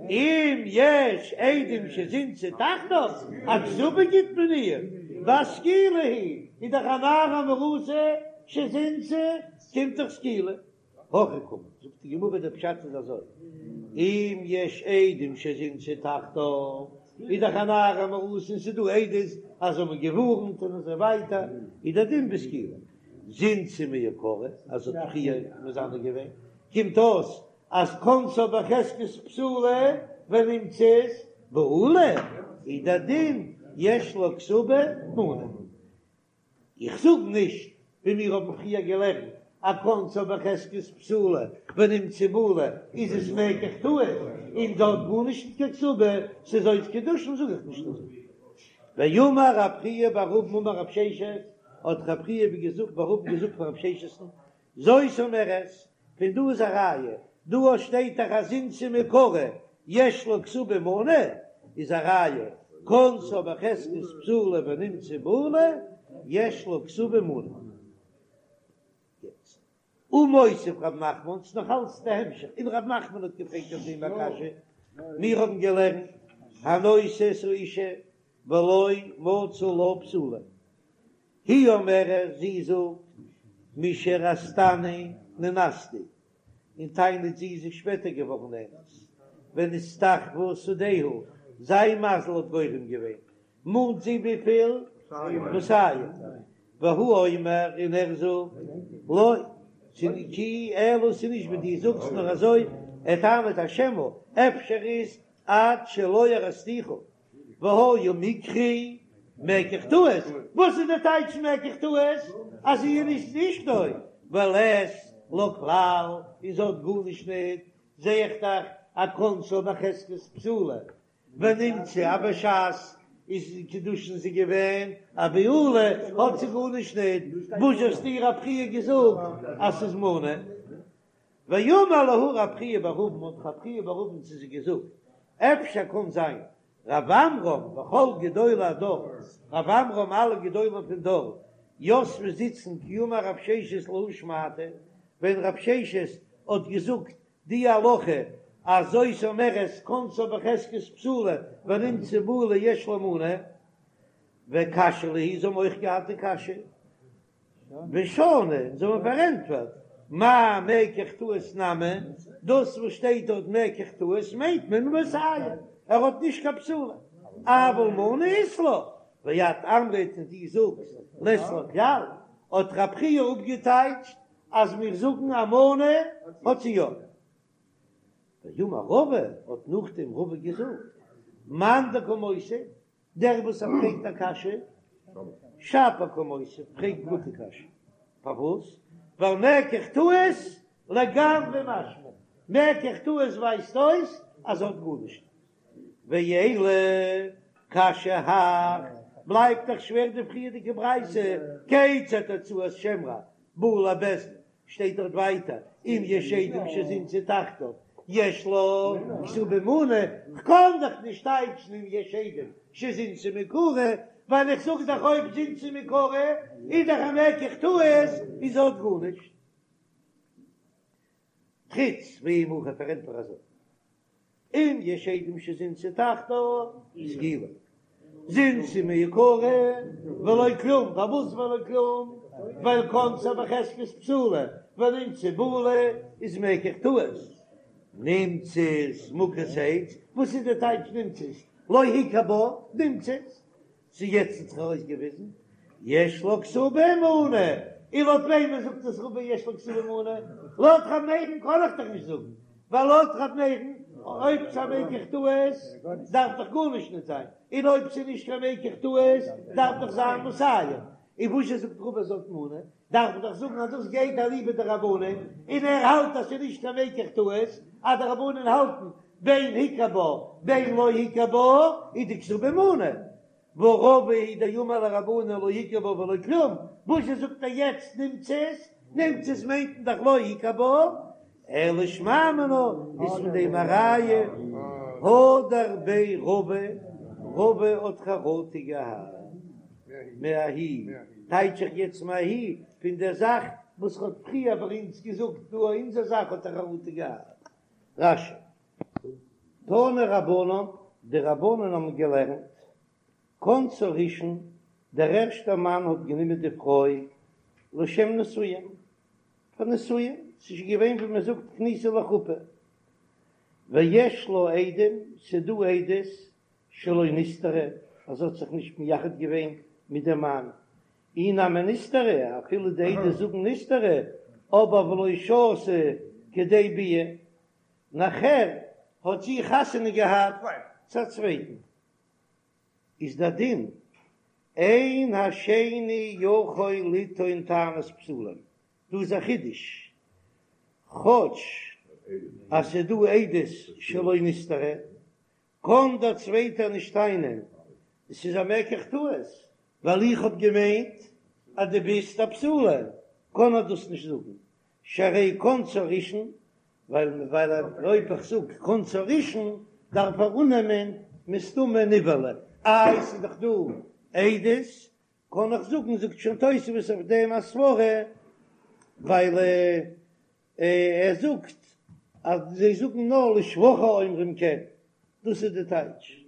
אם יש עדים שזינתה תחתיו, א כתובה גיט מען איר, והא סקילה היא, איז דאך א נערה המאורסה שזינתה, קומט דאך סקילה. הכי קאמר, זאגט די גמרא דער פשט איז אזוי, אם יש עדים שזינתה תחתיו, איז דאך א נערה המאורסה און ס'איז דא עדות אז זיי האבן געווארנט און אזוי ווייטער, איז דער דין בסקילה. זינתה מעיקרא, אז זי האט פריער מזנה געווען, קומט אויס אז כנסה בחזקת בתולה ונמצאת בעולה, איז דער דין יש לה כתובה מנה. איך זאג נישט ווי מיר האבן פריער געלערנט אז כנסה בחזקת בתולה ונמצאת בעולה איז עס מקח טעות און זי האט גארנישט נישט קיין כתובה ס'איז אויס קידושין זאג איך נישט אזוי. ואמר רב חייא בר אבין אמר רב ששת האט רב חייא בר אבין געזאגט פאר רב ששת'ן זאת אומרת, פון דא איז א ראיה, דא א שטייט דאך אז זינתה מעיקרא יש לה כתובה מנה, איז א ראיה, כנסה בחזקת בתולה ונמצאת בעולה, יש לה כתובה מנה. יעצט, ומותיב רב נחמן, ס'איז נאך אלץ די המשך, און רב נחמן האט געפרעגט אויף דעם א קשיא, מיר האבן געלערנט, הנושא את האשה ולא מצא לה בתולה, היא אומרת, זי זאגט, משארסתני נאנסתי, און טענה'ט זי איז שפעטער געווארן נאנס, ונסתחפה שדהו, זיין מזל האט גורם געווען, מאנט זי וויפיל? מאתים, והוא אומר, און ער זאגט, לא, כי אלא ס'איז נישט ווי דו זאגסט נאר אזוי, ער טענה'ט אז שמא, אפשר איז עד שלא ארסתיך, והיה מקרי מקח טעות, וואס איז די טייטש מקח טעות? אז זי איז נישט אשתו, ולית לה כלל, און זי האט גארנישט ניט, זע איך דאך אז כנסה בחזקת בתולה, ונמצאת אז בשעת איז קידושין זי געווען א בעולה, האט זי גארנישט ניט, וואס האסטו רב חייא געזאגט אז ס'איז מנה? ואמר להו רב חייא בר אבין האט רב חייא בר אבין צו זיי געזאגט, אפשר קאן זיין רב עמרם וכל גדולי הדור, רב עמרם אלע גדולים פון דור, יתבי זיצן כי אמר רב ששת להא שמעתא, ווען רב ששת האט געזאגט די הלכה. אז זאת אומרת כנסה בחזקת בתולה ונמצאה בעולה יש לה מנה, וקשיא להו, זיי האבן אויך געהאט די קשיא, ושנו, און זיי האבן פארענטפערט, מאי מקח טעות נמי, דאס וואס שטייט דארט מקח טעות מיינט מען מאתים, ער האט נישט קיין בתולה, אבל מנה אית לה, ואת אמרת און דו זאגסט לית לה כלל, האט רב חייא אפגעטייטשט אז מיר זאגן א מנה האט זי יא. ואמר רבא, האט נאכדעם רבא געזאגט, מאן דקא מותיב, דער וואס ער פרעגט א קשיא, שפיר קא מותיב, פרעגט גוטע קשיא, פארוואס? ווייל מקח טעות לגמרי משמע, מקח טעות ווייזט אויס אז ער האט גארנישט. ואלא קשיא הך, בלייבט דאך שווער די פריערדיגע ברייתא, כיצד הוצאת שם רע באה לבית דין, שטייט דארט ווייטער אם יש עדים שזינתה תחתיו יש לה כתובה מנה, כ'קען דאך נישט טייטשן אם יש עדים שזינתה מעיקרא, ווייל איך זאג דאך אויב זינתה מעיקרא איז דאך א מקח טעות און זי האט גארנישט. תריץ ואי הכי פארענטפער אזוי. אם יש עדים שזינתה תחתיו סקילה זינתה מעיקרא ולא כלום, פארוואס ולא כלום? ווייל כנסה בחזקת בתולה ונמצאה בעולה איז מקח טעות, נמצאת מוכת עץ, וואס איז די טייטש נמצאת? לא הכיר בה, נמצאת ס'איז יעצט האט זיך ארויסגעוויזן יש לה כתובה מנה, און לויט וועמען זאגט עס רבא יש לה כתובה מנה? לויט ר' מאיר'ן קען איך דאך נישט זאגן, ווייל לויט ר' מאיר'ן אויב ס'איז א מקח טעות דארף דאך גארנישט נישט זיין, און אויב ס'איז נישט קיין מקח טעות דארף דאך זיין מאתים, און וואזשע זאגט רבא זי האט מנה? דארף מען דאך זאגן אז דאס גייט אליבא דרבנן, און ער האלט אז ס'איז נישט קיין מקח טעות, אז די רבנן האלטן בין הכיר בה בין לא הכיר בה איז די כתובה מנה, והא רבא הוא דאמר לרבנן לא הכיר בה ולא כלום, וואזשע זאגט ער יעצט נמצאת? נמצאת מיינט מען דאך לא הכיר בה, אלא שמע מינה איז פון דעם א ראיה הדר ביה רבא, רבא האט חרטה געהאט מההיא, טייטש איך יעצט מההיא פון דער זאך וואס ר'האט פריער ביי אונז געזאגט דא אונזער זאך האט ער חרטה געהאט. רש"י. תנו רבנן, די רבנן האבן געלערנט, כנסה ראשון, דער ערשטער מאן האט גענומען די פרוי לשם נישואין, פאר נישואין, ס'איז שוין געווען ווי מען זאגט כניסה לחופה, ויש לה עדים, ס'איז דא עדות שלא נסתרה, אז זי האט זיך נישט מייחד געווען מיט דעם מאן, אי נמי נסתרה, אפילו די עדות זאגן נסתרה, אבער ולא שהתה כדי ביאה, נאכער האט זי חתונה געהאט צו א צווייטן. איז דער דין, אין השני יכול לטעון טענת בתולים, דא איז א חידוש, כאטש אז ס'איז דא עדות שלא נסתרה, קען דער צווייטער נישט טענה'ן עס איז א מקח טעות, ווייל איך האב געמיינט אז דו ביסט א בתולה, קען ער דאס נישט זאגן, שהרי כנסה ראשון, ווייל ווייל אויב איך זאג כנסה ראשון דארף ער אננעמען מסתמא נבעלה, איי ס'איז דאך דא עדות, קען איך זאגן, זאגט שוין תוספות אויף דעם א סברא, ווייל ער זאגט אז זיי זאגן נאר לשבחה אומרים כן, דאס איז די טייטש.